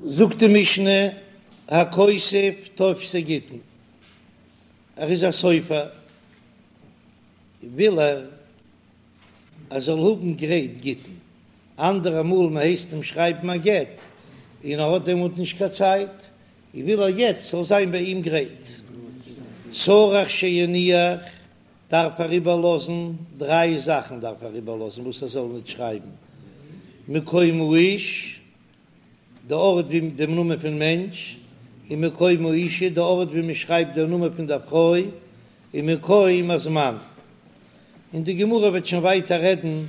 זאגט די משנה, הכותב טופסי גיטין, ער איז א סופר, וויל ער ער זאל האבן גרייט גיטין, אנדערע מאל מען הייסט אים שרייבן א גט און ער האט דעמאלט נישט קיין צייט, און וויל ער יעצט ס'זאל זיין ביי אים גרייט. צריך שיניח דארף ער איבערלאזן דריי זאכן דארף ער איבערלאזן וואס ער זאל ניט שרייבן, מקום האיש, די ארט ווי דעם נאמען פון מענטש, און מקום האישה, די ארט ווי מען שרייבט דער נאמען פון דער פרוי, און מקום הזמן. און די גמרא וועט שוין ווייטער רעדן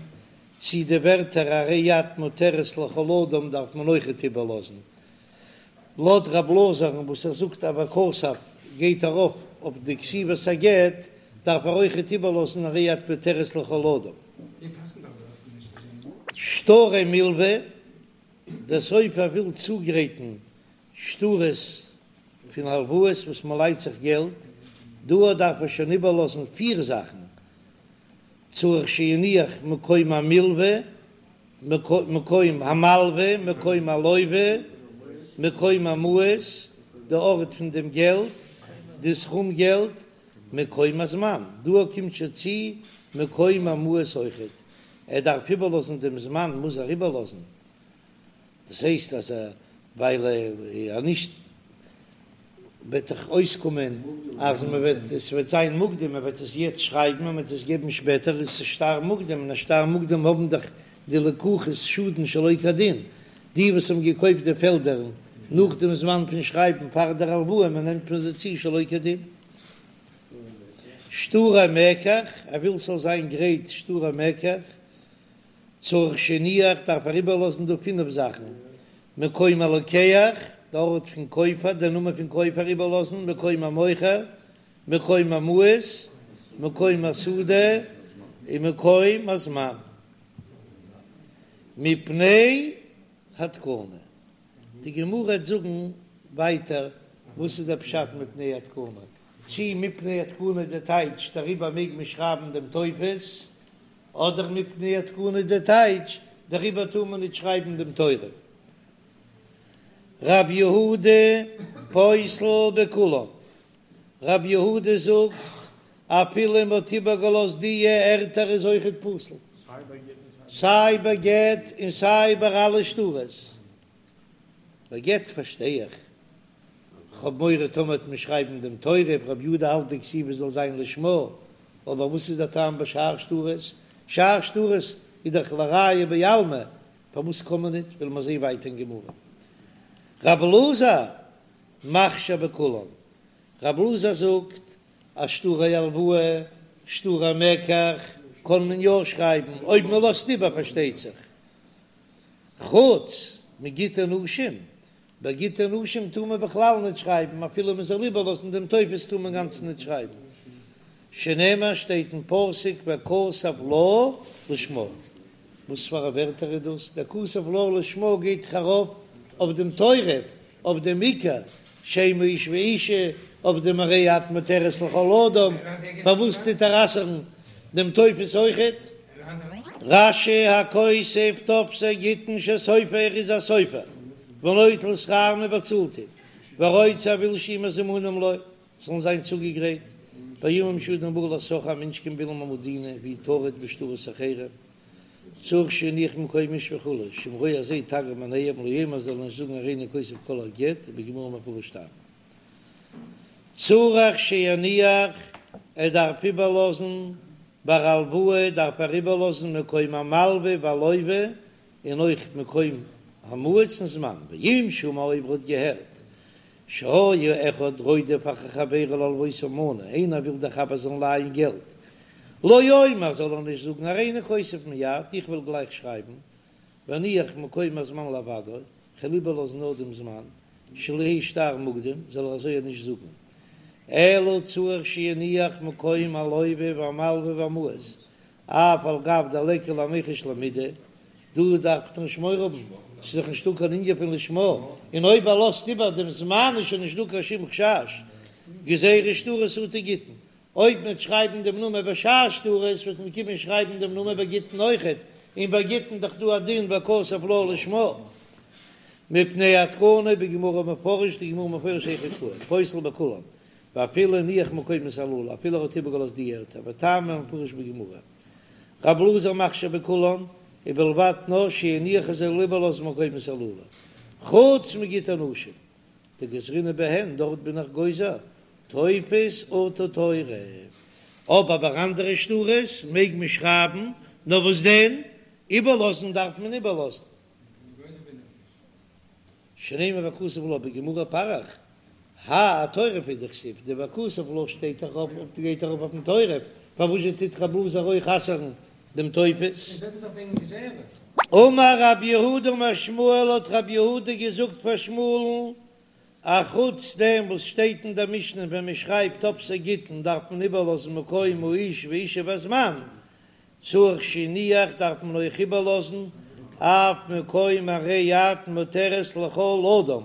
צי די ווערטער הרי את מותרת לכל אדם דארף מען אויכעט איבערלאזן. לויט רב אלעזר'ן וואס ער זאגט אז וכתב גייט ארויף אויף די כתיבת הגט, דארף ער אויכעט איבערלאזן הרי את מותרת לכל אדם. שטרי מלוה, דער סופר וויל צוגרייטן שטרות פון הלוואות וואס מען לייט זיך געלט, דא דארף ער שוין איבערלאזן פיר זאכן, צריך שיניח מקום המלוה, מקום המלוה, מקום הלוה, מקום המעות, די ארט פון דעם געלט, די סכום געלט, מקום הזמן, דא קומט שוין צו מקום המעות אויכעט, ער דארף איבערלאזן דעם זמן מוז ער איבערלאזן, דאס הייסט אז ווייל ער נישט וועט דאך אויסקומען אז מען וועט עס וועט זיין מוקדם מען וועט עס יעצט שרייבן און מען וועט עס געבן שפעטער איז עס שטר מוקדם און א שטר מוקדם האבן דאך די לקוחות שאדן שלא כדין די וואס האבן געקויפט די פעלדער נאך דעם זמן פון שרייבן פאר דער הלוואה מען נעמט פון זיי צו שלא כדין. שטרי מקח, ער וויל ס'זאל זיין גרייט שטרי מקח, צריך שיניח דארף ער איבערלאזן דא פינף זאכן, מקום הלוקח, די ארט פון קויפער, די נאמען פון קויפער איבערלאזן, מקום המוכר, מקום המעות, מקום השדה, און מקום הזמן. מפני התקנה. די גמרא וועט זאגן ווייטער וואס איז דער פשט מפני התקנה, צי מפני התקנה די טייטש דעריבער מעג מען שרייבן דעם טופס, אדער מפני התקנה די טייטש דעריבער טאר מען ניט שרייבן דעם תורף. רב יהודה פוסל בכולן, רב יהודה זאגט אפילו מען האט איבערגעלאזט די ערטער איז אויכעט פסול, סיי ביי גט און סיי ביי אלע שטרות. ביי גט פארשטיי איך, כ'האב מורא טאמער וועט מען שרייבן דעם תורף, רב יהודה האלט די כתיבה זאל זיין לשמה, אבער וואס איז דער טעם ביי שאר שטרות? שאר שטרות איז דאך לראיה בעלמא, פארוואס קען מען ניט? וועלן מיר זעהן ווייטער אין גמרא. רב אלעזר מכשיר בכולן, רב אלעזר זאגט אז שטרי הלוואה, שטרי מקח, קען מען יא שרייבן, אויב מען לאזט איבער פארשטייט זיך, חוץ מגיטי נשים, ביי גיטי נשים טאר מען בכלל ניט שרייבן, אפילו מען זאל איבערלאזן דעם טופס טאר מען גאנץ ניט שרייבן, שנאמר שטייט אין פסוק וכתב לה לשמה, וואס פאר א ווערטער איז דאס? דער כתב לה לשמה גייט דאך ארויף אויף דעם תורף, אויף דעם עיקר, שם האיש ואישה, אויף דעם הרי את מותרת לכל אדם, פארוואס טוט ער אסר'ן דעם טופס אויכעט? רש"י הכותב טופסי גיטין שסופר איז א סופר, ונוטל שכר מען באצאלט אים, ורוצה ער וויל שיהיו מזומנים לו, זאלן זיין צוגעגרייט, פעמים שאדם בא לשכרו א מענטש קומט ווילן המדינה והוא טרוד בשטרות אחרים, צריך שיניח מקום האיש וכו', שאם רואה אז זי תגר מעיניהם לא יאמר זאל ער נישט זאגן הריני כותב כל הגט ובגמרא מפרש טעמא. צריך שיניח ער דארף איבערלאזן ביי הלוואה דארף ער איבערלאזן מקום המלווה והלווה און אויך מקום המעות און זמן ואם שמע אויב ער האט געהערט שהיה אחד רודף אחר חברו להלוותו מנה איינער וויל דער חבר זאל לייען געלט לא יאמר זאל ער נישט זאגן הריני כותב מיד איך וועל גלייך שרייבן ואניח מקום הזמן לבדו כ'וועל איבערלאזן נאר דעם זמן שלא יהא שטר מוקדם זאל ער אזוי נישט זאגן אלא צריך שיניח מקום הלווה והמלווה והמעות אף על גב דליכא למיחש למידי, דא דארף מען נישט מורא האבן, ס'איז דאך נישטא קיין ענין פון לשמה, און אויב ער לאזט איבער דעם זמן איז שוין נישטא קיין שום חשש, גזירה שטרות אטו גיטין, אויב מ'וועט שרייבן דעם נאמען ביי שאר שטרות וועט מען קומען שרייבן דעם נאמען ביי גיטין אויכעט, און ביי גיטין דאך דא א דין וכתב לה לשמה. מפני התקנה בגמרא מפרש די גמרא מפרש היכי קאי פוסל בכולם ואפילו הניח מקומות הללו אפילו ער האט איבערגעלאזט די ערטער וטעמא מפרש בגמרא רב אלעזר מכשיר בכולן ובלבד נאר שיניח ער זאל איבערלאזן מקומות הללו חוץ מגיטי נשים דגזרינן בהן דארט בין איך גוזר טופס אטו תורף אבער ביי אנדערע שטרות מעג מען שרייבן נאר וואס דען איבערלאזן דארף מען איבערלאזן. שנאמר וכתב לה בגמרא פריך האי אתורף הוא דכתיב, די וכתב לה שטייט דאך אויף אויף גייט ארויף אויפן תורף, פארוואס זשע טוט רב אלעזר אויך אסר'ן דעם טופס? אמר רב יהודה אמר שמואל האט רב יהודה געזאגט פאר שמואל'ן, א חוץ דעם וואס שטייט אין דער משנה ווען מען שרייבט טופסי גיטין דארף מען איבערלאזן מקום האיש ואישה והזמן, צריך שיניח דארף מען אויך איבערלאזן אף מקום הרי את מותרת לכל אדם,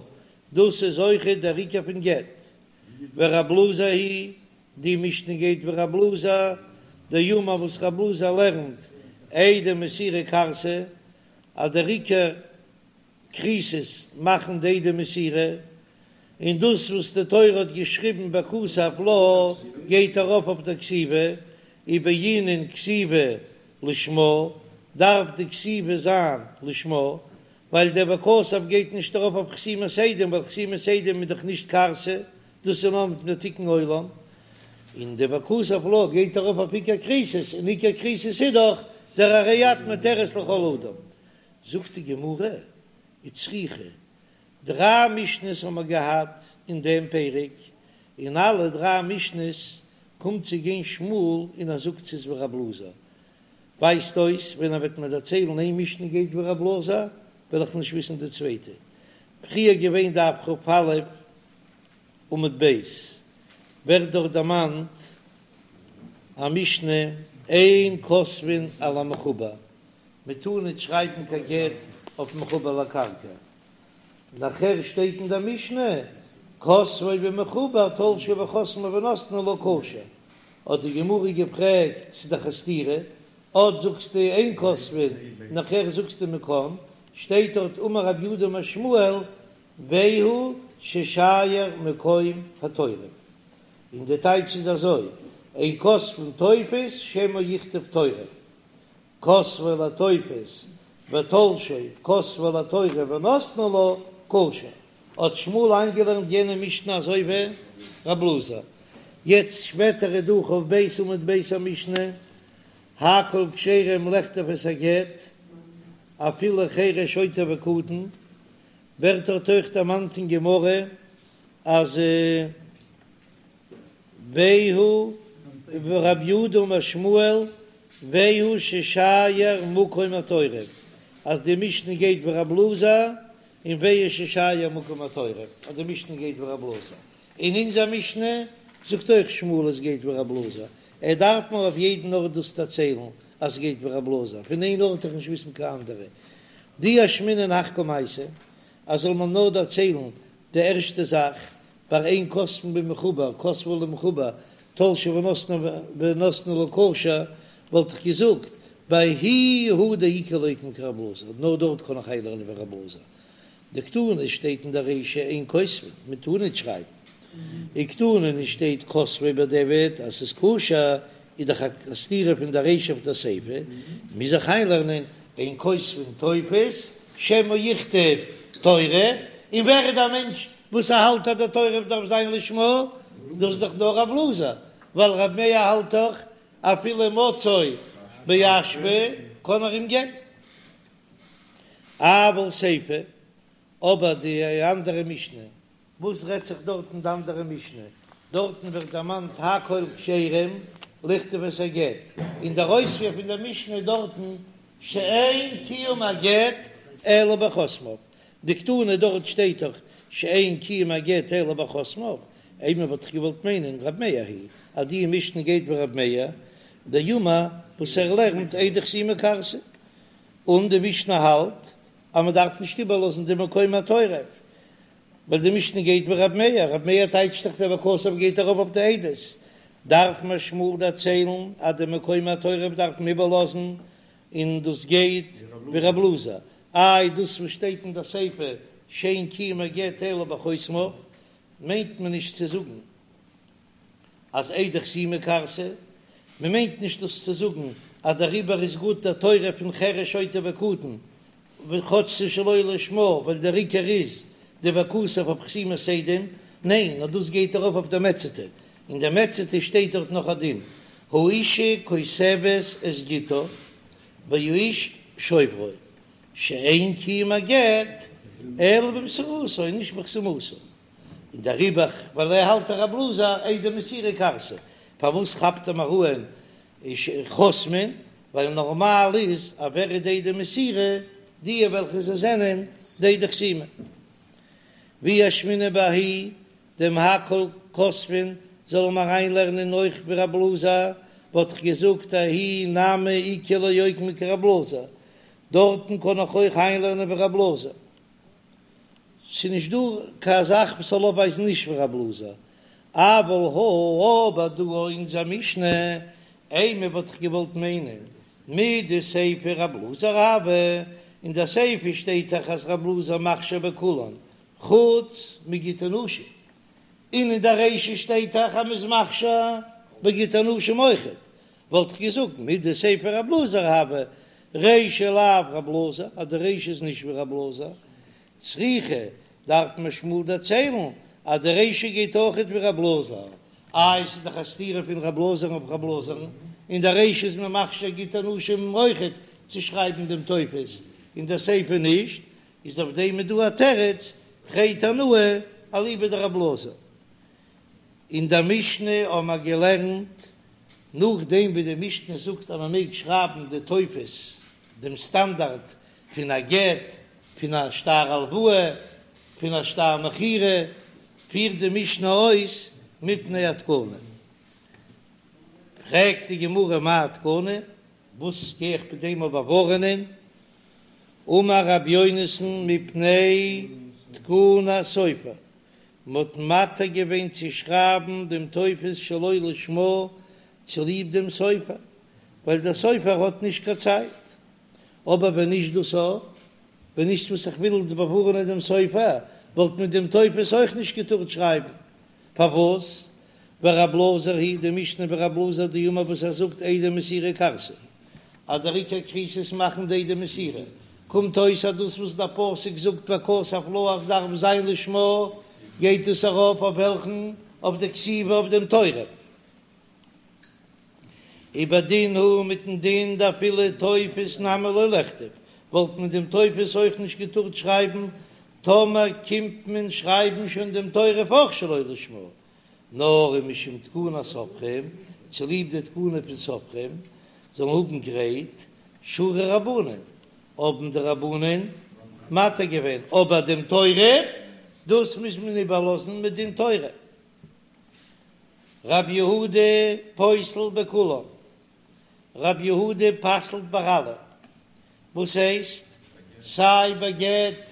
דאס איז אויכעט דער עיקר פון גט. ורב אלעזר היא די משנה גייט ווי רב אלעזר, דאמר וואס רב אלעזר לערנט עדי מסירה כרתי אז דער עיקר כריתות מאכן די עדי מסירה, און דאס וואס די תורה האט געשריבן וכתב לה גייט ארויף אויף דער כתיבה, ובעינן כתיבה לשמה, דארף די כתיבה זיין לשמה, ווייל דער וכתב גייט נישט ארויף אויף חתימת עדים, ווייל חתימת עדים איז דאך נישט כרתי, דאס איז נאר מפני תיקון עולם, און די וכתב לה גייט ארויף אויף עיקר כריתות, און עיקר כריתות איז דאך דער הרי את מותרת לכל אדם. זאגט די גמרא, וצריכא, דריי משניות האבן מיר געהאט אין דעם פרק, אין אלע דריי משניות קומט צו גיין שמואל און ער זאגט ס'איז ווי רב אלעזר, ווייזט אויס ווען ער וועט מיר דערציילן איין משנה גייט ווי רב אלעזר וועל איך נישט וויסן די צווייטע, פריער געווען דף כ"א עמוד ב' ווערט דארט דערמאנט א משנה אין כותבין על המחובר, מען טאר ניט שרייבן קיין גט אויף מחובר לקרקע, נאכער שטייט אין דער משנה, כותבו במחובר תלשו וחתמו ונתנו לה כשר, האט די גמרא געפרעגט ס'איז דאך א סתירה, אט זאגסטו אין כותבין נאכער זאגסטו מען קען, שטייט דארט אמר רב יהודה אמר שמואל והוא ששייר מקום התורף, און די טייטש איז אזוי, אין כותבין טופס שמא יכתוב תורף, כתבו לטופס ותלשו כתבו לתורף ונתנו לה כשר, האט שמואל איינגעלערנט יענע משנה אזוי ווי רב אלעזר, יעצט שפעטער איז דא כ"ב עמוד ב' א משנה, הכל כשרים לכתוב את הגט אפילו חרש שוטה וקטן, ווערט דארט אויך דערמאנט אין גמרא אז. והוא רב יהודה אמר שמואל והוא ששייר מקום התורף, אז די משנה גייט ווי רב אלעזר, און והוא ששייר מקום התורף, אז די משנה גייט ווי רב אלעזר, און אונזער משנה זאגט אויך שמואל עס גייט ווי רב אלעזר, ער דארף מיר אויף יעדן ארט דאס דערציילן אז עס גייט ווי רב אלעזר, פון איין ארט איך נישט וויסן קיין אנדערע, דאי אשמעינן הך קמייתא, אז זאל מען נאר דערציילן די ערשטע זאך, ביי אין כותבין במחובר, כתבו למחובר, תלשו ונתנו ונתנו לה כשר, וואלט איך געזאגט, בההיא הוא דאיכא לוקמה כרב אלעזר, נאר דארט קען איך איינלערנען ווי רב אלעזר. דקתני שטייט אין דער רישא אין כותבין, מען טאר ניט שרייבן. וקתני נישט שטייט כתבו בדיעבד אז ס'איז כשר, איז דאך א סתירה פון דער רישא אויף דער סיפא, מוז איך איינלערנען אין כותבין טופס שמא יכתוב תורף, און ווער איז דער מענטש וואס ער האלט אז דער תורף דארף זיין לשמה, דאס איז דאך נאר רב אלעזר, ווייל רב מאיר האלט דאך אפילו מצאו באשפה קען ער אים געבן. אבל סיפא, אבער די אנדערע משנה, וואס רעדט זיך דארט אין די אנדערע משנה? דארטן ווערט דערמאנט הכל כשרים לכתוב את הגט, און דער אויספיר פון דער משנה דארטן שאין קיום הגט אלא בחותמיו, דקתני דארט שטייט דאך שאין קיום הגט אלא בחותמיו, אימא וואלט איך געוואלט מיינען רב מאיר היא אז די משנה גייט ווי רב מאיר דאמר וואס ער לערנט עדי חתימה כרתי, און די משנה האלט אז מען דארף נישט איבערלאזן די מקום התורף, ווייל די משנה גייט ווי רב מאיר, רב מאיר טייטשט דאך דער וכתב גייט ארויף אויף די עדות, דארף מיר שמואל דערציילן אז די מקום התורף דארף מען איבערלאזן, און דאס גייט ווי רב אלעזר, איי דאס וואס שטייט אין די סיפא. שאין קיום הגט אלא בחותמיו, מיינט מען נישט צו זאגן אז עדי חתימה כרתי, מען מיינט נישט דאס צו זאגן אז דעריבער איז גוט דער תורף פון חרש שוטה וקטן, כאטש ס'איז שלא לשמה, ווייל דער עיקר איז די וכתב אויף חתימת עדים, ניין, נאר דאס גייט ארויף אויף דער מציעתא, אין דער מציעתא שטייט דארט נאך א דין, האשה כותבת את גיטה והאיש שוברו, שאין קיום הגט אלא במסירתו, נישט בחתימתו. און דעריבער ווייל ער האלט רב אלעזר עדי מסירה כרתי, פארוואס כאפט ער מיר אן חותמין, ווייל נארמאל איז אז ווער איז די עדי מסירה, די וועלכע זיי זענען די עדי חתימה. ואי אשמעינן בההיא דעם הכל כותבין זאל מען אריינלערנען אויך ווי רב אלעזר, וואלט איך געזאגט ההיא נמי איכא לאוקמי כרב אלעזר, דארטן קען איך אויך איינלערנען ווי רב אלעזר. ס'איז נישט דא קיין זאך וואס זאל אויפווייזן נישט ווי רב אלעזר, אבל הא אבער דא אונזער משנה, אימא וואלט איך געוואלט מיינען מדסיפא רב אלעזר הוי, אין די סיפא שטייט דאך אז רב אלעזר מכשיר בכולן חוץ מגיטי נשים, און אין די רישא שטייט דאך אז מ'איז מכשיר בגיטי נשים אויכעט, וואלט איך געזאגט מדסיפא רב אלעזר הוי, רישא לאו רב אלעזר, אז די רישא איז נישט ווי רב אלעזר, צריכא דארף מיר שמואל דערציילן אז די רישא גייט אויכעט ווי רב אלעזר, איי עס איז דאך א סתירה פון רב אלעזר'ן אויף רב אלעזר'ן, אין די רישא איז מען מכשיר גיטי נשים אויכעט צו שרייבן דעם טופס, אין די סיפא נישט, איז אויף דעם איז דא א תירוץ, תרי תנאי אליבא דרב אלעזר. אין דער משנה האבן מיר געלערנט, נאכדעם ווי די משנה זאגט אז מען מעג שרייבן די טופס, דעם סטאנדארט פון א גט, פון א שטר הלוואה, פון א שטר מכירה, פירט די משנה אויס מפני התקנה. פרעגט די גמרא מאי תקנה, וואס גיי איך מיט דעם אויף באווארענען? אמר רבי יונתן מפני תקנת סופר, מ'האט מתיר געווען צו שרייבן דעם טופס שלא לשמה צוליב דעם סופר, ווייל דער סופר האט נישט קיין צייט. אבער ווען נישט דאס א, ווען נישט וואס איך וויל באווארענען דעם סופר, וואלט מען דעם טופס אויך נישט געטארט שרייבן. פארוואס? ורב אלעזר היא די משנה ווי רב אלעזר דאמר וואס ער זאגט עדי מסירה כרתי אז דער עיקר כריתות מאכן די עדי מסירה, קומט אויס אז דאס וואס דער פסוק זאגט וכתב לה אז דארף זיין לשמה, גייט עס ארויף אויף וועלכן? אויף די כתיבה אויף דעם תורף. ובדין הוא מיטן דין דאפילו טופס נמי לא לכתוב, וואלט מען דעם טופס אויך נישט געטארט שרייבן, טאמער קומט מען שרייבן שוין דעם תורף אויך שלא לשמה, נאר ומשום תקנת סופרים, צוליב די תקנה פון סופרים זאלן האבן גרייט שרו רבנן, האבן די רבנן מתיר געווען, אבער דעם תורף דאס מוז מען איבערלאזן מדין תורה. רב יהודה פוסל בכולן, רב יהודה פסל'ט ביי אלע, וואס הייסט? סיי ביי גט,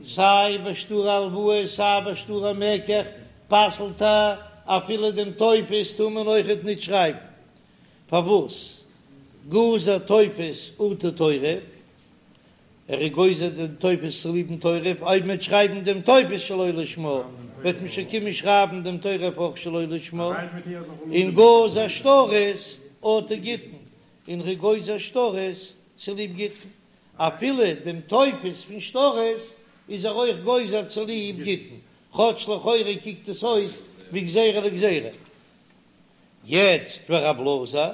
סיי ביי שטר הלוואה, סיי ביי שטר המקח, פסל'ט ער, אפילו דעם טופס טאר מען אויכעט ניט שרייבן. פארוואס? גזר טופס אטו תורף, ער איז גוזר דעם טופס צוליב'ן תורף, אויב מ'וועט שרייבן דעם טופס שלא לשמה, וועט מען שוין קומען שרייבן דעם תורף אויך שלא לשמה, און גזר שטרות אטו גיטין, און ער איז גוזר שטרות צוליב גיטין, אפילו דעם טופס פון שטרות איז ער אויך גוזר צוליב גיטין, כאטש לכאורה קוקט עס אויס ווי גזירה לגזירה. יעצט ורב אלעזר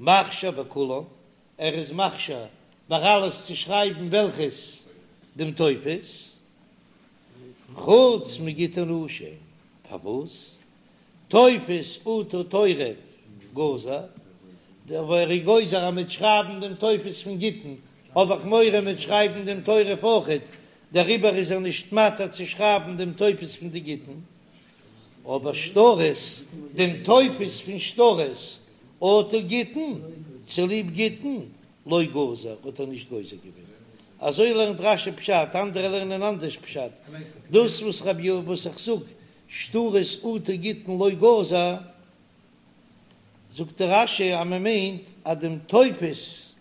מכשיר בכולן, ער איז מכשיר ביי אלעס צו שרייבן וועלכעס דעם טופס, חוץ מגיטי נשים, פארוואס? טופס אטו תורף גזר, דער ער איז גוזר אז מ'וועט שרייבן דעם טופס פון גיטין, האב איך מורא מ'וועט שרייבן דעם תורף אויכעט, דעריבער איז ער נישט מתיר צו שרייבן דעם טופס פון די גיטין, אבער שטרות, דעם טופס פון שטרות אטו גיטין, צוליב גיטין, לא גזר, האט ער נישט גוזר געווען. אזוי לערנט רש"י פשט, אנדערע לערנען אנדערש פשט. דאס וואס רבי י וואס איך זאג, שטרות אטו גיטין לא גזר, זאגט דער רש"י אז מען מיינט אז דעם טופס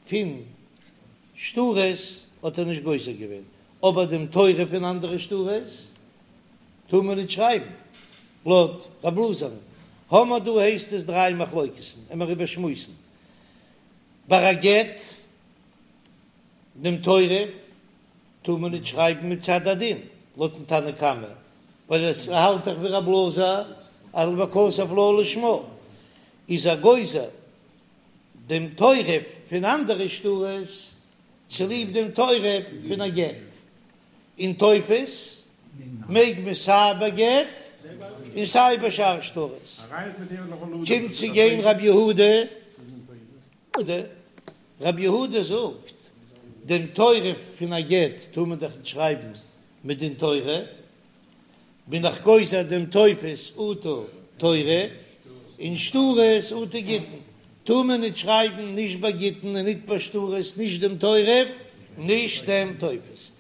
פון שטרות האט ער נישט גוזר געווען. אבער דעם תורף פון אנדערע שטרות טאר מען ניט שרייבן, לויט רב אלעזר'ן האמער דא הייסט עס דריי מחלוקת'ן, עמער איבערשמועסן ביי א גט דעם תורף טאר מען ניט שרייבן מצד הדין לויטן תנא קמא, ווייל עס האלט דאך ווי רב אלעזר אז וכתב לה לשמה איז ער גוזר דעם תורף פון אנדערע שטרות צוליב דעם תורף פון א גט, און טופס מעג מען סיי ביי גט און סיי ביי שאר שטרות. קומט צו גיין רב יהודה, רב יהודה זאגט, דעם תורף פון א גט טאר מען דאך נישט שרייבן מדין תורה, בין איך גוזר דעם טופס אטו תורף, און שטרות אטו גיטין, טאר מען ניט שרייבן נישט ביי גיטין און ניט ביי שטרות נישט דעם תורף נישט דעם טופס.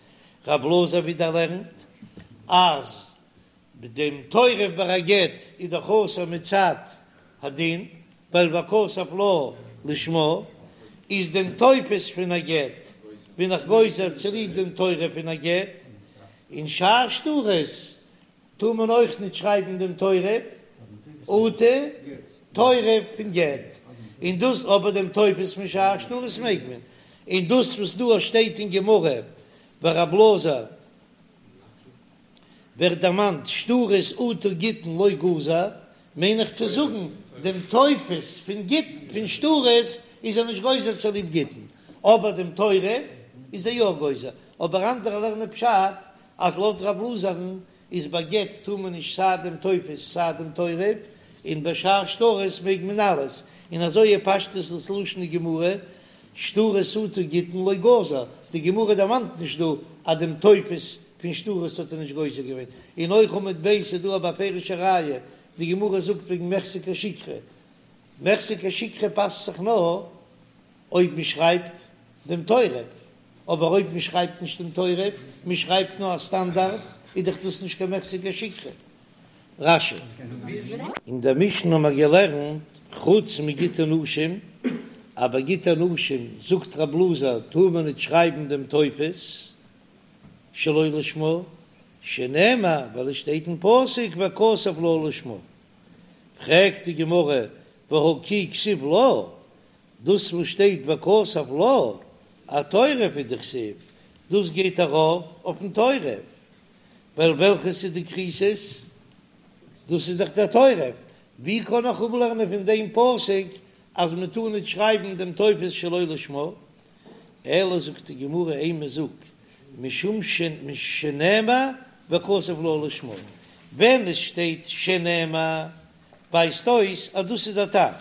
רב אלעזר ווידער לערנט אז דעם תורף ביי א גט איז דאך אסור מצד הדין, ווייל וכתב לה לשמה איז דעם טופס פון א גט בין איך גוזר צוליב דעם תורף פון א גט, און שאר שטרות טאר מען אויך ניט שרייבן דעם תורף אטו תורף פון גט, און דאס אבער דעם טופס פון שאר שטרות מעג מען, און דאס וואס דא שטייט אין גמרא ורב אלעזר ווערט דערמאנט שטרות אטו גיטין לא גזר, מיין איך צו זאגן דעם טופס פון גיטין פון שטרות איז ער נישט גוזר צוליב גיטין, אבער דעם תורף איז ער יא גוזר, אבער אנדערע לערנען פשט אז לויט רב אלעזר'ן איז ביי גט טאר מען נישט סיי דעם טופס סיי דעם תורף, און ביי שאר שטרות מעג מען אלעס, און אזוי איז פשטות דאס לשון הגמרא, שטרות אטו גיטין לא גזר, די גמרא דערמאנט נישט דא אז דעם טופס פון שטרות האט ער נישט גוזר געווען, און אויך עמוד ב' איז דא א בפירוש'ע ראיה, די גמרא זאגט וועגן מיחזי כשיקרא, מיחזי כשיקרא פאסט זיך נאר אויב מען שרייבט דעם תורף, אבער אויב מען שרייבט נישט דעם תורף, מען שרייבט נאר א סטאנדארט, איז דאך דאס נישט קיין מיחזי כשיקרא. רש"י. אין דער משנה האבן מיר געלערנט, חוץ מגיטי נשים, אז ביי גיטי נשים זאגט רב אלעזר טאר מען ניט שרייבן דעם טופס שלא לשמה, שנאמר ווייל עס שטייט אין פסוק וכתב לה לשמה. פרעגט די גמרא והא כי כתיב לה, דאס וואס שטייט וכתב לה, אתורף הוא דכתיב, דאס גייט ארויף אויפן תורף, ווייל וועלכעס איז די כריתות? דאס איז דאך דער תורף, ווי קען איך אפלערנען פון דעם פסוק אז מען טאר ניט שרייבן דעם טופס שלא לשמה? אלא זאגט די גמרא אימא זאג משום שנאמר וכתב לה לשמה, ווען עס שטייט שנאמר ווייזט אויס אז דאס איז דער טעם,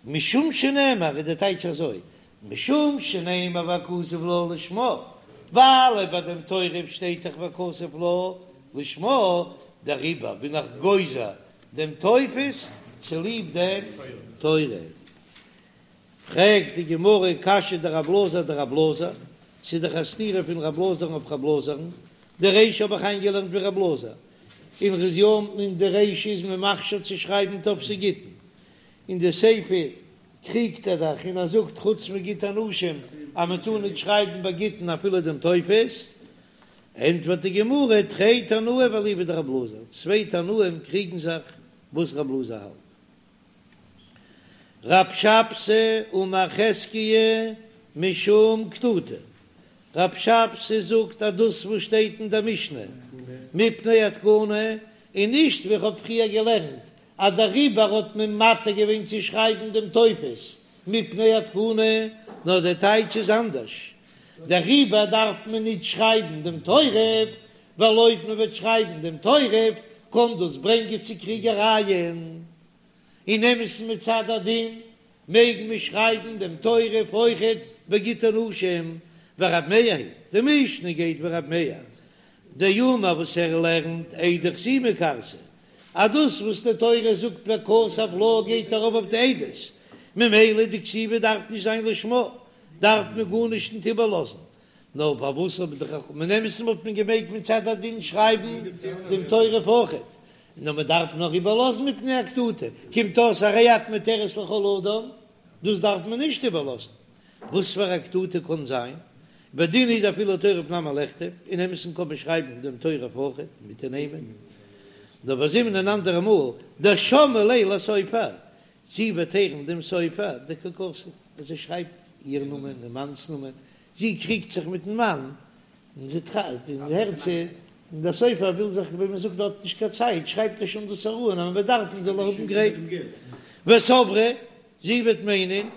משום שנאמר איז די טייטש אזוי, משום שנאמר וכתב לה לשמה, ווייל ביי דעם תורף שטייט דאך וכתב לה לשמה, דעריבער בין איך גוזר דעם טופס צוליב דעם תורף. פרעגט די גמרא קשיא דרב אלעזר אדרב אלעזר, ס'איז דאך א סתירה פון רב אלעזר'ן אויף רב אלעזר'ן, די רישא האב איך איינגעלערנט ווי רב אלעזר, און ר'איז יא אין די רישא איז מען מכשיר צו שרייבן טופסי גיטין, אין די סיפא קריגט ער דאך און ער זאגט חוץ מגיטי נשים אז מען טאר ניט שרייבן ביי גיטין אפילו דעם טופס, ענטפערט די גמרא תרי תנאי ואליבא דרב אלעזר, צוויי תנאים קריגן זיך וואס רב אלעזר האלט. רב שבתי אמר חזקיה משום קטוטה, רב שבתי זאגט אז דאס וואס שטייט אין דער משנה מפני התקנה און נישט ווי איך האב פריער געלערנט אז דעריבער האט מען מתיר געווען צו שרייבן דעם טופס מפני התקנה, נאר דער טייטש איז אנדערש, דעריבער דארף מען ניט שרייבן דעם תורף, ווייל אויב מען וועט שרייבן דעם תורף קען דאס ברענגען צו קריגערייען. אין אמת'ן מצד הדין מעג מען שרייבן דעם תורף אויכעט בגיטי נשים, ורב מאיר היא, די משנה גייט ווי רב מאיר דאמר וואס ער לערנט עדי חתימה כרתי, אז דאס וואס די תורה זאגט וכתב לה גייט ארויף אויף די עדות, ממילא די כתיבה דארף נישט זיין לשמה, דארף מען גארנישט נישט איבערלאזן, נאר פארוואס האבן די חכמים אין אמת'ן וואלט מען געמעגט מצד הדין שרייבן דעם תורף אויכעט, נאר מען דארף נאר איבערלאזן מפני הקטוטה, קומט אויס הרי את מותרת לכל אדם, דאס דארף מען נישט איבערלאזן, וואס פאר א קטוטה קען זיין? ובדין הוא דאפילו תורף נמי לכתוב, אין אמת'ן קען מען שרייבן דעם תורף אויכעט מיט די נעמען, נאר וזימנין אן אנדערע מאל דשמעה ליה לסופר, זי וועט הערן דעם סופר דקא כתיב אז ער שרייבט איר נאמען און מאנ'ס נאמען, זי קריגט זיך מיטן מאן און זי טראכט און הערט צו, און דער סופר וויל זיך ווי מען זאגט האט נישט קיין צייט שרייבט ער שוין דאס אראפ און אז מען וועט דארפן זאל ער האבן גרייט. וסברה, זי וועט מיינען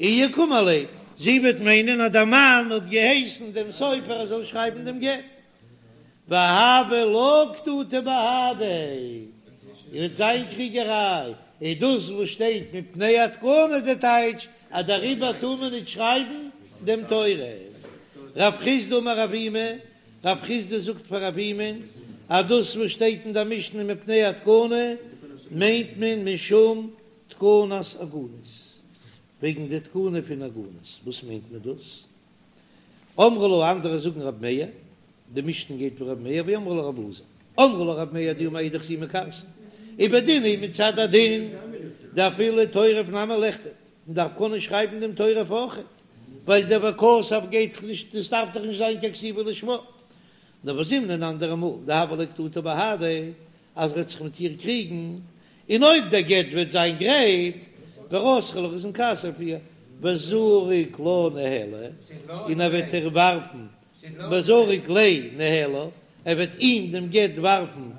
איהו קאמר ליה, זי וועט מיינען אז דער מאן האט געהייסן דעם סופר ער זאל שרייבן דעם גט, והויא לה קטוטא בהדיה, און וועט זיין קריגעריי, איז דאס וואס שטייט מפני התקנה די טייטש אז דעריבער טאר מען נישט שרייבן דעם תורף. רב חסדא אמר אבימי, רב חסדא זאגט פאר אבימי'ן אז דאס וואס שטייט אין דער משנה מפני התקנה מיינט מען משום תקנת עגונות, וועגן די תקנה פון עגונות, וואס מיינט מען דאס? אמרי לה, אנדערע זאגן רב מאיר, די משנה גייט ווי רב מאיר, ואמרי לה רב אלעזר, אמרי לה רב מאיר דאמר אידך זימא כרתי, ובדין הוא מצד הדין דאפילו תורף נמי לכתוב, מען דארף קענען שרייבן דעם תורף אויכעט, ווייל דער וכתב גייט דאך נישט, עס דארף דאך נישט זיין קיין כתיבה לשמה, נאר וזימנין אן אנדערע מאל דהויא ליה קטוטא בהדיה, אז ער וועט זיך מיט איר קריגן, און אויב דער גט וועט זיין גרייט, ורתחא לך איז אין כעס אויף איר, וזריק לה ניהלה, און ער וועט איר ווארפן, וזריק ליה ניהלה, ער וועט אים דעם גט ווארפן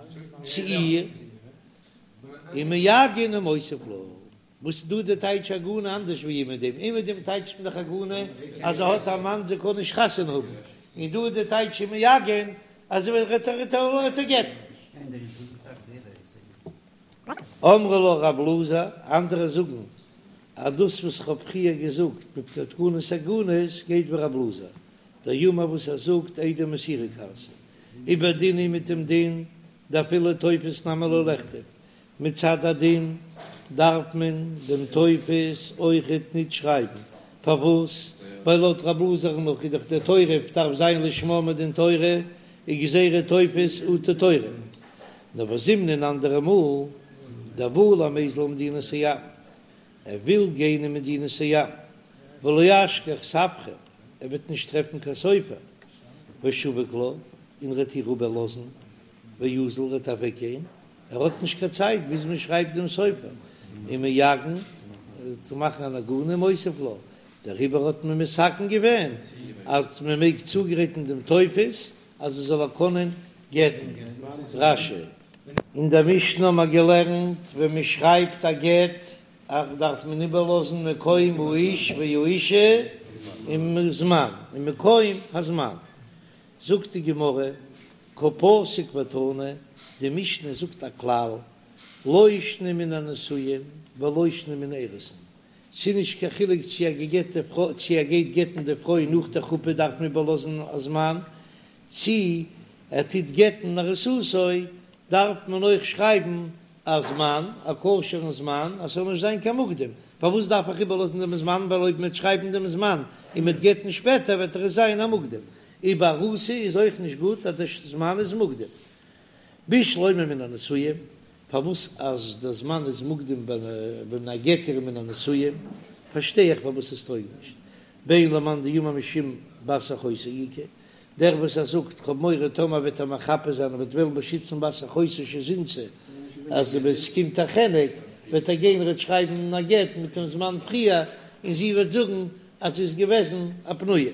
צו איר, ומעגן ומותיב לה. וואס איז דא די טייטש עגונה אנדערש ווי אומעדום? אומעדום טייטשט מען דאך עגונה אז זי האט א מאן זי קען נישט חתונה האבן, און דא איז די טייטש ומעגן אז זי וועט ער גט'ן. אמרי לה רב אלעזר, אנדערע זאגן אז דאס וואס כ'האב פריער געזאגט מפני תקנת עגונות גייט ווי רב אלעזר, דאמר וואס ער זאגט עדי מסירה כרתי, ובדין הוא מיט דעם דין דאפילו טופס נמי לא לכתוב, מצד הדין דארף מען דעם טופס אויכעט ניט שרייבן, פארוואס? ווייל לויט רב אלעזר'ן נאך איז דאך דער תורף דארף זיין לשמה מדין תורה, איז גזירה טופס אטו תורף. נאר וזימנין אנדערע מאל דבעי למיזל למדינת הים, ער וויל גיין אין מדינת הים, ולא אשכח ספרא, ער וועט נישט טרעפן קיין סופר, ושביק לה, און ר'עט איר איבערלאזן, ואזיל ר'עט אוועקגיין, ער האט נישט קיין צייט ביז מען שרייבט דעם סופר ומעגן צו מאכן אן עגונה ומותיב לה, דעריבער האט מען מתקן געווען אז מען מעג צוגרייטן דעם טופס אז עס זאל ער קענען גט'ן. רש"י. אין דער משנה האט מען געלערנט ווען מען שרייבט א גט דארף מען איבערלאזן מקום האיש והאישה און זמן און מקום הזמן, זאגט די גמרא, קא פסיק ותני, די משנה זאגט א כלל, לא שנא מן הנשואין ולא שנא מן האירוסין, ס'איז נישט קיין חילוק צו א גע'גט'ע פרוי, צו ער גייט גט'ן די פרוי נאך די חופה דארף מען איבערלאזן א זמן, צו ער טוט גט'ן ארוסתו דארף מען אויך שרייבן א זמן, א כשר'ן זמן, אז ס'זאל נישט זיין קיין מוקדם, פארוואס דארף איך איבערלאזן דעם זמן, ווייל אויב מ'וועט שרייבן דעם זמן און מ'וועט גט'ן שפעטער וועט דאך עס זיין א מוקדם, און ביי ארוסה איז אויך נישט גוט אז דער זמן איז מוקדם. בשלמא מן הנשואין, פארוואס אז דער זמן איז מוקדם ווען ער גט איר מן הנשואין, פארשטיי איך פארוואס עס טויג נישט, בין למאן דאמר משום בת אחותו איכא, דער וואס ער זאגט כ'האב מורא טאמער וועט ער מחפה זיין און וועט וועלן באשיצן בת אחותו שזינתה אז ווען ס'קומט א חנק וועט ער גיין ער וועט שרייבן א גט מיט דעם זמן פריער און זי וועט זאגן אז זי איז געוועזן א פנויה.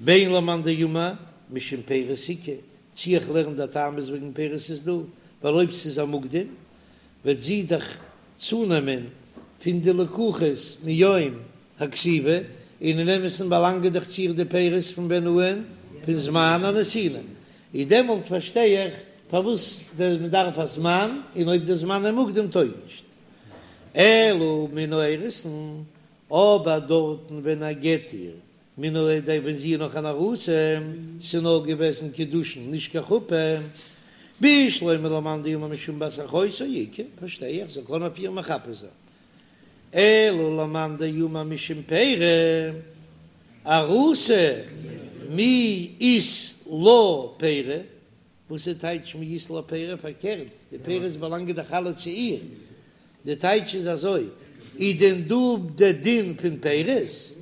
בין למאן דאמר משום פירות איכא, צי איך לערן דער טעם איז וועגן פירות איז דא, ווייל אויב ס'איז א מוקדם וועט זי דאך צונעמען פון די לקוחות מיום הכתיבה, און אין אמת'ן באלאנגען דאך צו איר די פירות פון ווען אן פון זמן הנתינה, איז דעמאלט פארשטיי איך פארוואס מען דארף א זמן, און אויב די זמן איז מוקדם טויג נישט. אלא מן האירוסין, אבער דארטן ווען ער גט איר מן האירוסין ווען זי איז נאך אן ארוסה, ס'איז נאר געוועזן קידושין נישט קיין חופה, בשלמא למאן דאמר משום בת אחותו איכא, פארשטיי איך זאל קענען אויף איר מחפה זיין. אלא למאן דאמר משום פירי ארוסה מי אית לה פירי, וואס איז טייטש מי אית לה פירי? פארקערט, די פירות באלאנגען דאך אלע צו איר, די טייטש איז אזוי, איז דען דא די דין פון פירות?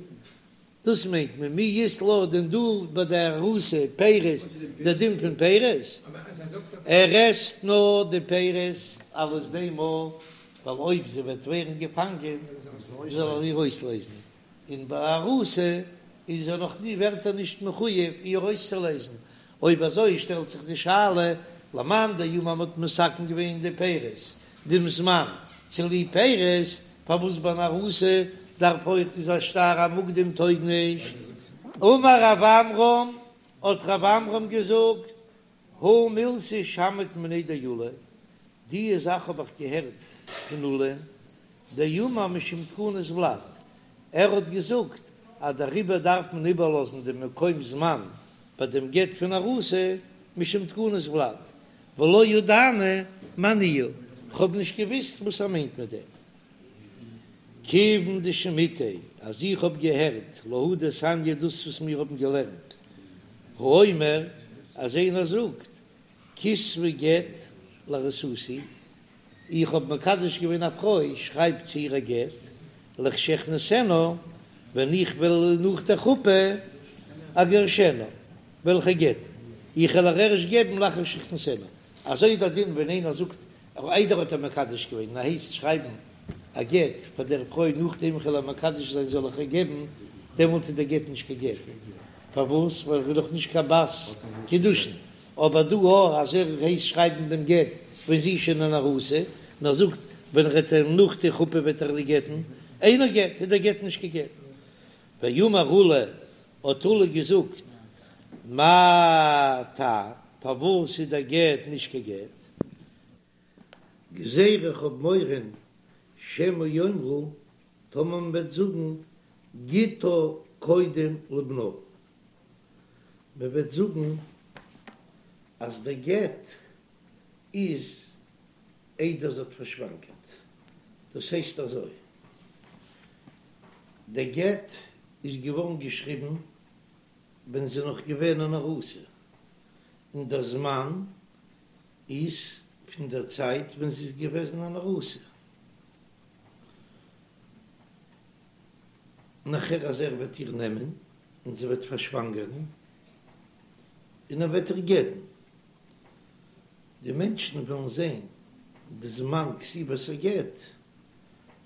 דאס מיינט מען מי אית לה דען דא ביי די ארוסה פירות די דין פון פירות, ער עסט נאר די פירות אלס דעם ווייל אויב זי וועט ווערן געפאנגען זאל ער איר אויסלייזן, און ביי ארוסה איז ער נאך נישט ווערט ער נישט מחויב איר אויסצולייזן, אויב אזוי שטעלט זיך די שאלה למאן דאמר מ'האט מתקן געווען די פירות דעם זמן צוליב פירות, פארוואס ביי אן ארוסה דארף אויך איז א שטר המוקדם טויג נישט? אמר רב עמרם, האט רב עמרם געזאגט, הא מילתא שמעית מיניה דעולא, די זאך האב איך געהערט פון עולא, דאמר משום תקנת ולד, ער האט געזאגט אז דעריבער דארף מען איבערלאזן דעם מקום זמן ביי דעם גט פון ארוסה משום תקנת ולד, ולא ידענא מאי ניהו, כ'האב נישט געוויסט וואס ער מיינט מיט דעם. כיוון דשמעיתיה, אז איך האב געהערט להא דתניא דאס וואס מיר האבן געלערנט, האומר, אז איינער זאגט, כתבי גט לארוסתי, איך האב מקדש געווען א פרוי, שרייב צו איר א גט, לכשאכנסנה, ווען איך וועל נאך דער חופה, אגרשנה, וועל איך איר גט'ן, איך וועל איר ערשט געבן לאחר שאכנסנה. אזוי איז דער דין ווען איינער זאגט איידער האט ער מקדש געווען און ער הייסט שרייבן א גט פאר דער פרוי נאכדעם איך וועל איר מקדש זיין זאל איך איר געבן, דעמאלט איז דער גט נישט קיין גט, פארוואס? ווייל ער איז דאך נישט קיין בת קידושין, אבער דא אויך אז ער הייסט שרייבן דעם גט ווען זי איז שוין אן ארוסה, און ער זאגט ווען ער וועט איר נאך די חופה וועט ער איר גט'ן, אינו גט, איז דער גט נישט קיין גט. ואמר עולא, האט עולא געזאגט, מאי טעם, פארוואס איז דער גט נישט קיין גט? גזירה איך האב מורא שמא יאמרו, טאמער מען וועט זאגן גיטה קודם לבנה, מען וועט זאגן אז דער גט איז איידער זי האט פארשוואנגערט, דאס הייסט אזוי, דער גט איז געווארן געשריבן ווען זי איז נאך געווען אן ארוסה, און דער זמן איז פון דער צייט ווען זי איז געוועזן אן ארוסה. נאכער אז ער וועט איר נעמען און זי וועט פארשוואנגערן און ער וועט איר גט'ן, די מענטשן וועלן זען די זמן כתיבת הגט,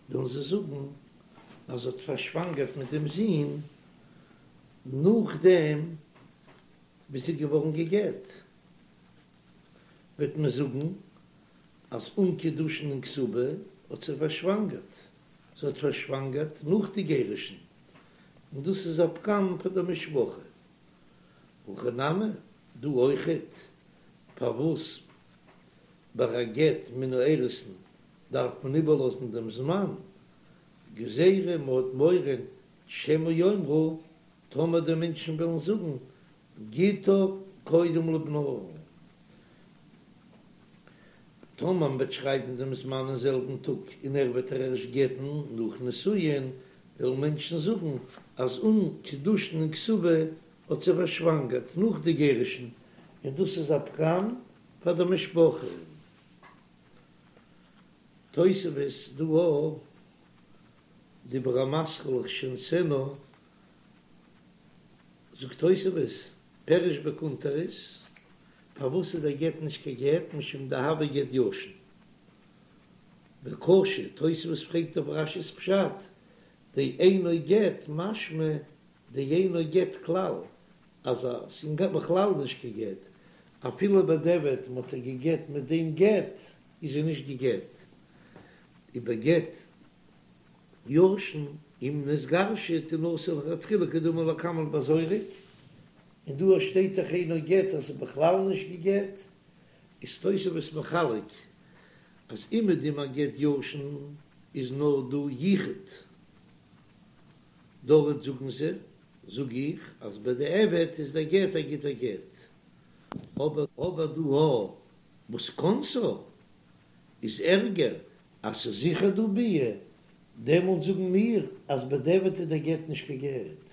וועלן זיי זאגן אז זי האט פארשוואנגערט מיט דעם זון נאכדעם ווי זי איז געווארן גע'גט, וועט מען זאגן אז אן קידושין און כתובה האט זי פארשוואנגערט, זי האט פארשוואנגערט נאך די גירושין, און דאס איז א פגם פאר די משפחה. הכא נמי, דא אויכעט, פארוואס ביי א גט מן האירוסין דארף מען איבערלאזן דעם זמן, גזירה מ'האט מורא שמא יאמרו, טאמער די מענטשן וועלן זאגן גיטה קודם לבנה. טאמער מען וועט שרייבן דעם זמן אין זעלבן טאג און ער וועט איר ערשט גט'ן נאך נישואין, וועלן מענטשן זאגן אז אן קידושין און כתובה האט זי פארשוואנגערט נאך די גירושין, און דאס איז א פגם פאר די משפחה. תוספות דא אויף דיבור המתחיל לכשאכנסנה זאגט תוספות, פירש בקונטרס, פארוואס איז דער גט נישט קיין גט, משום דהוי גט ישן. וקשה, תוספות פרעגט אויף רש"י'ס פשט, דאינו גט משמע דאינו גט כלל, אז עס איז בכלל נישט קיין גט, אפילו בדיעבד מ'האט איר געגט מיט דעם גט, איז זי נישט געגט. ובגט ישן אם נתגרשה תנשא לכתחילה כדאמר לקמן בזורק, און דא שטייט דאך אינו גט אז ס'איז בכלל נישט געגט, איז תוספות מחלק אז אומעדום א גט ישן איז נאר דא יחוד, דארט זאגן זיי, זאג איך אז בדיעבד איז דער גט א גוטער גט, אבער דא וואס כנסה איז ערגער אז ס'איז זיכער דא ביאה, דעמאלט זאגן מיר אז בדיעבד איז דער גט נישט קיין גט.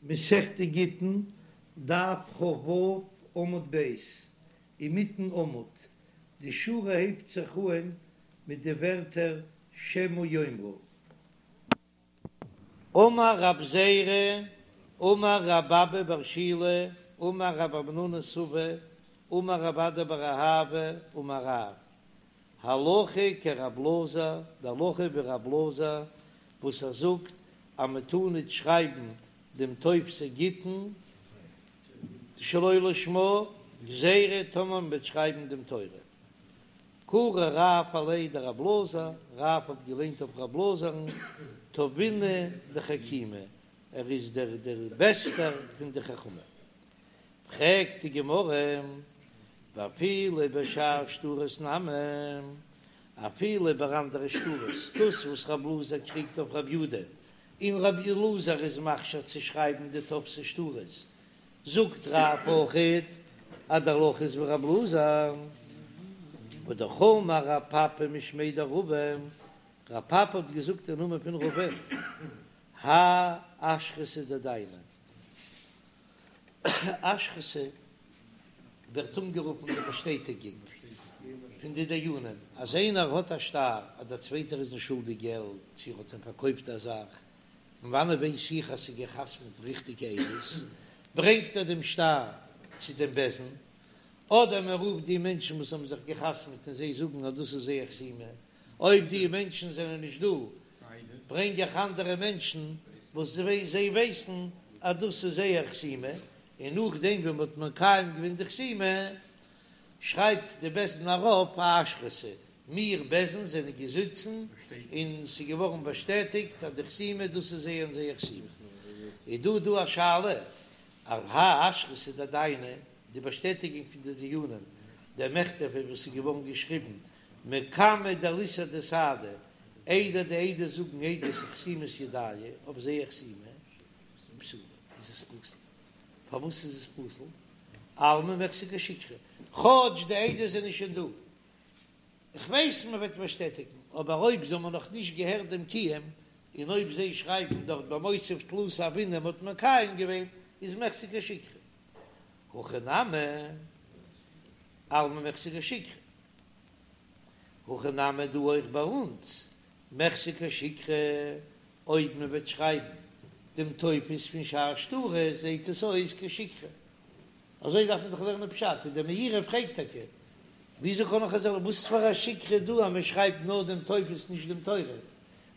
מסכת גיטין, דף כ"ו עמוד ב', אינמיטן עמוד, די שורה הייבט זיך אהן מיט די ווערטער שמא יאמרו. אמר רב זירא, אמר רב אבא בר שילא, אמר רב המנונא סבא, אמר רב אדא בר אהבה, אמר רב, הלכה כרב אלעזר, די הלכה ווי רב אלעזר וואס ער זאגט אז מען טאר ניט שרייבן דעם טופסי גיטין שלא לשמה, גזירה טאמער מען וועט שרייבן דעם תורף. קרי רב עליה דרב אלעזר, רב האט געליינט אויף רב אלעזר'ן, טבינא דחכימי, ער איז דער דער בעסטער פון די חכמים. פרעגט די גמרא, ואפילו בשאר שטרות נמי, אפילו ביי אנדערע שטרות, דאס וואס רב אלעזר קריגט אויף רב יודא, און רב אלעזר איז מכשיר צו שרייבן די טופסי שטרות, זאגט רב אויכעט אז די הלכה איז ווי רב אלעזר, והאמר רב פפא משמיה דרבא, רב פפא האט געזאגט אין נאמען פון רבא, האי אשרתא דדייני, אשרתא ווערט אנגערופן די באשטעטיגונג פון די דיינים אז איינער האט א שטר אז דער צווייטער איז אים שולדיג געלט צו ער האט אים פארקויפט א זאך, פון וואנעט ווייס איך אז ס'איז גע'חתמ'ט ריכטיגע עדות? ברענגט ער דעם שטר צו דעם בית דין, אדער מען רופט די מענטשן וואס האבן זיך גע'חתמ'ט און זיי זאגן אז דאס איז זייער חתימה, אויב די מענטשן זענען נישט דא, ברענג איך אנדערע מענטשן וואס זיי ווייסן אז דאס איז זייער חתימה, און נאכדעם ווען מען האט מקיים געווען די חתימה, שרייבט די בית דין ארויף א אשרתא, מיר בית דין זענען געזיצן און ס'איז געווארן באשטעטיגט אז די חתימה דאס איז זייער און זייער חתימה. איז דא דא א שאלה אז האי אשרתא דדייני, די באשטעטיגונג פון די דיינים, דמיכתבא וואס איז געווארן געשריבן מקמי דליסהדו סהדי, איידער די עדות זאגן עדות אחתימת ידייהו אויף זייער חתימה, פסולה, איז עס פסול. פארוואס איז עס פסול? אלמא מיחזי כשיקרא, כאטש די עדות זענען שוין דא, איך ווייס מען וועט באשטעטיגן, אבער אויב זיי האבן נאך נישט געהערט דעם קיום, און אויב זיי שרייבן דארט במותיב תלתא הוינן מ'האט מקיים געווען, איז מיחזי כשיקרא. הכא נמי, אלמא מיחזי כשיקרא. הכא נמי דא אויך ביי אונז, מיחזי כשיקרא, אויב מען וועט שרייבן דעם טופס פון שאר שטרות זעהט עס אויס כשיקרא. אזוי דארף מען דאך לערנען פשט, און דער מאירי פרעגט טאקע, וויאזוי קען איך אזוי, וואס פאר א שיקרא דא אז מען שרייבט נאר דעם טופס נישט דעם תורף,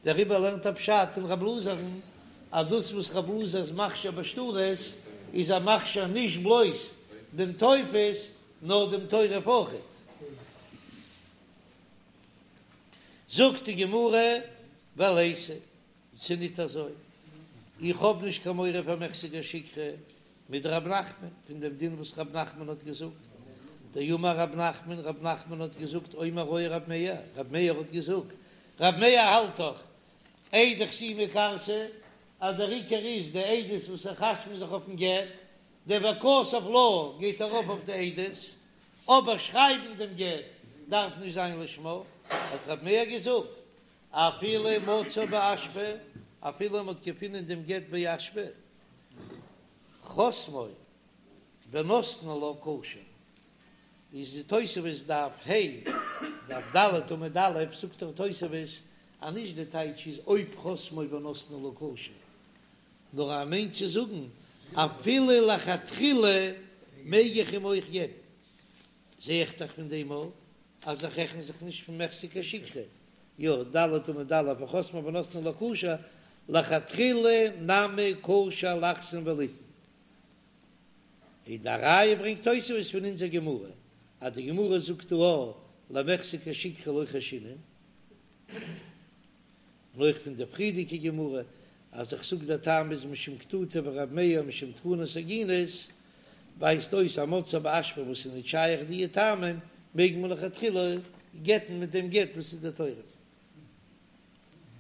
דעריבער לערנט ער פשט אין רב אלעזר'ן אז דאס וואס רב אלעזר איז מכשיר בשטרות איז ער מכשיר נישט בלויז דעם טופס נאר דעם תורף אויכעט. זאגט די גמרא, וליתא, ס'איז ניט אזוי, איך האב נישט קיין מורא פאר מיחזי כשיקרא מדרב נחמן, פון דעם דין וואס רב נחמן האט געזאגט, דאמר רב נחמן, רב נחמן האט געזאגט, אומר היה רב מאיר, רב מאיר האט געזאגט, רב מאיר האלט דאך, עדי חתימה כרתי, אז דער עיקר איז די עדות וואס זיי חתמ'ן זיך אויפן גט, דער וכתב לה גייט ארויף אויף די עדות, אבער שרייבן דעם גט דארף נישט זיין לשמה, האט רב מאיר געזאגט, אפילו מצאו באשפה, אפילו מען האט געפונען דעם גט באשפה, חתמו ונתנו לה כשר, איז די תוספות דף ה', דף ד' עמוד א', זאגט דער תוספות אז נישט די טייטש איז אויב חתמו ונתנו לה כשר, נאר ער מיינט צו זאגן אפילו לכתחילה מעג איך אים אויך געבן, זע איך דאך פון דעם אויך אז איך רעכן זיך נישט פון מיחזי כשיקרא, יא, ד' עמוד א', וחתמו ונתנו לה כשר, לכתחילה נמי כשר לחתום וליתן. און די ראיה ברענגט תוספות פון אונזער גמרא, אז די גמרא זאגט דא למיחזי כשיקרא לא חיישינן, און אויך פון די פריערדיגע גמרא אז איך זאג דער טעם איז משום קטטה ורב מאיר משום תקנת עגונות, ווייזט אויס אז מצאו באשפה וואס איז נישט שייך דיע טעמים מעג מען לכתחילה גט'ן מיט דעם גט וואס איז די תורף.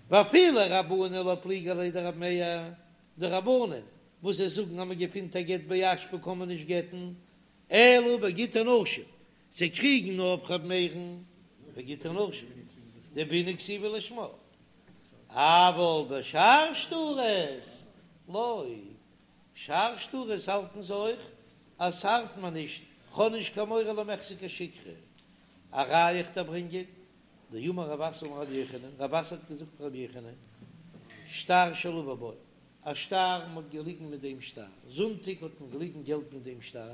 ואפילו רבנן לא פליגי עליה דרב מאיר, די רבנן וואס זיי זאגן אז מען געפינט א גט באשפה קען מען נישט גט'ן, אלא בגיטי נשים, זיי קריגן נאר אויף ר' מאיר'ן בגיטי נשים, דבעינן כתיבה לשמה, אבל בשאר שטרות לא, שאר שטרות האלטן זיי אויך אז ס'ארט מיר נישט, כ'האב נישט קיין מורא למיחזי כשיקרא, א ראיה איך דיר ברענגען, דאמר רב אסי אמר רבי יוחנן, רב אסי האט געזאגט פון רבי יוחנן, שטר שלוה בו. א שטר, מען האט געליגן מיט דעם שטר, זונטאג האט מען געליגן געלט מיט דעם שטר,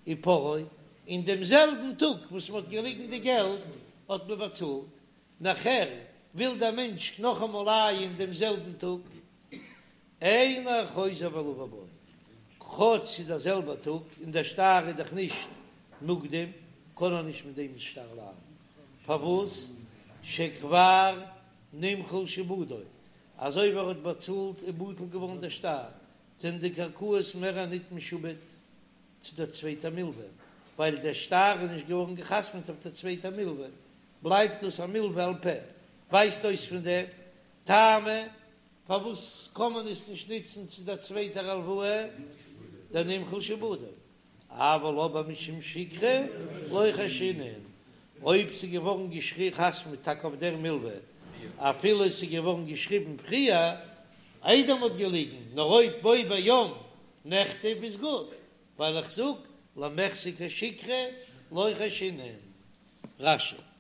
ופרעו, אין דעם זעלבן טאג וואס מען האט געליגן די געלט האט מען באצאלט, נאכער וויל דער מענטש נאכאמאל לייען דעם זעלבן טאג, אינו חוזר ולוה בו, כאטש ס'איז דער זעלבער טאג און דער שטר איז דאך נישט מוקדם, קען ער נישט מיט דעם שטר לייען, פארוואס? שכבר נמחל שעבודו, אזוי ווי ער האט באצאלט איז בטל געווארן דער שטר, זענען די קרקעות מער ניט משועבד צו דער צווייטער מלווה, ווייל דער שטר איז נישט געווארן געחתמעט אויף דער צווייטער מלווה, בלייבט דאס א מלווה על פה. ווייזט אויס פון דעם טעמא פארוואס קען מען עס נישט ניצן צו דער צווייטער הלוואה, דנמחל שעבודו. אבל אבער משום שיקרא לא חיישינן, אויב ס'איז געווארן געחתמעט טאקע אויף דער מלווה, אפילו עס איז געווארן געשריבן פריער איידער מ'האט געליגן, נאר אויב בו ביום נכתב איז גוט, ווייל איך זאג למחזי כשיקרא לא חיישינן. רש"י.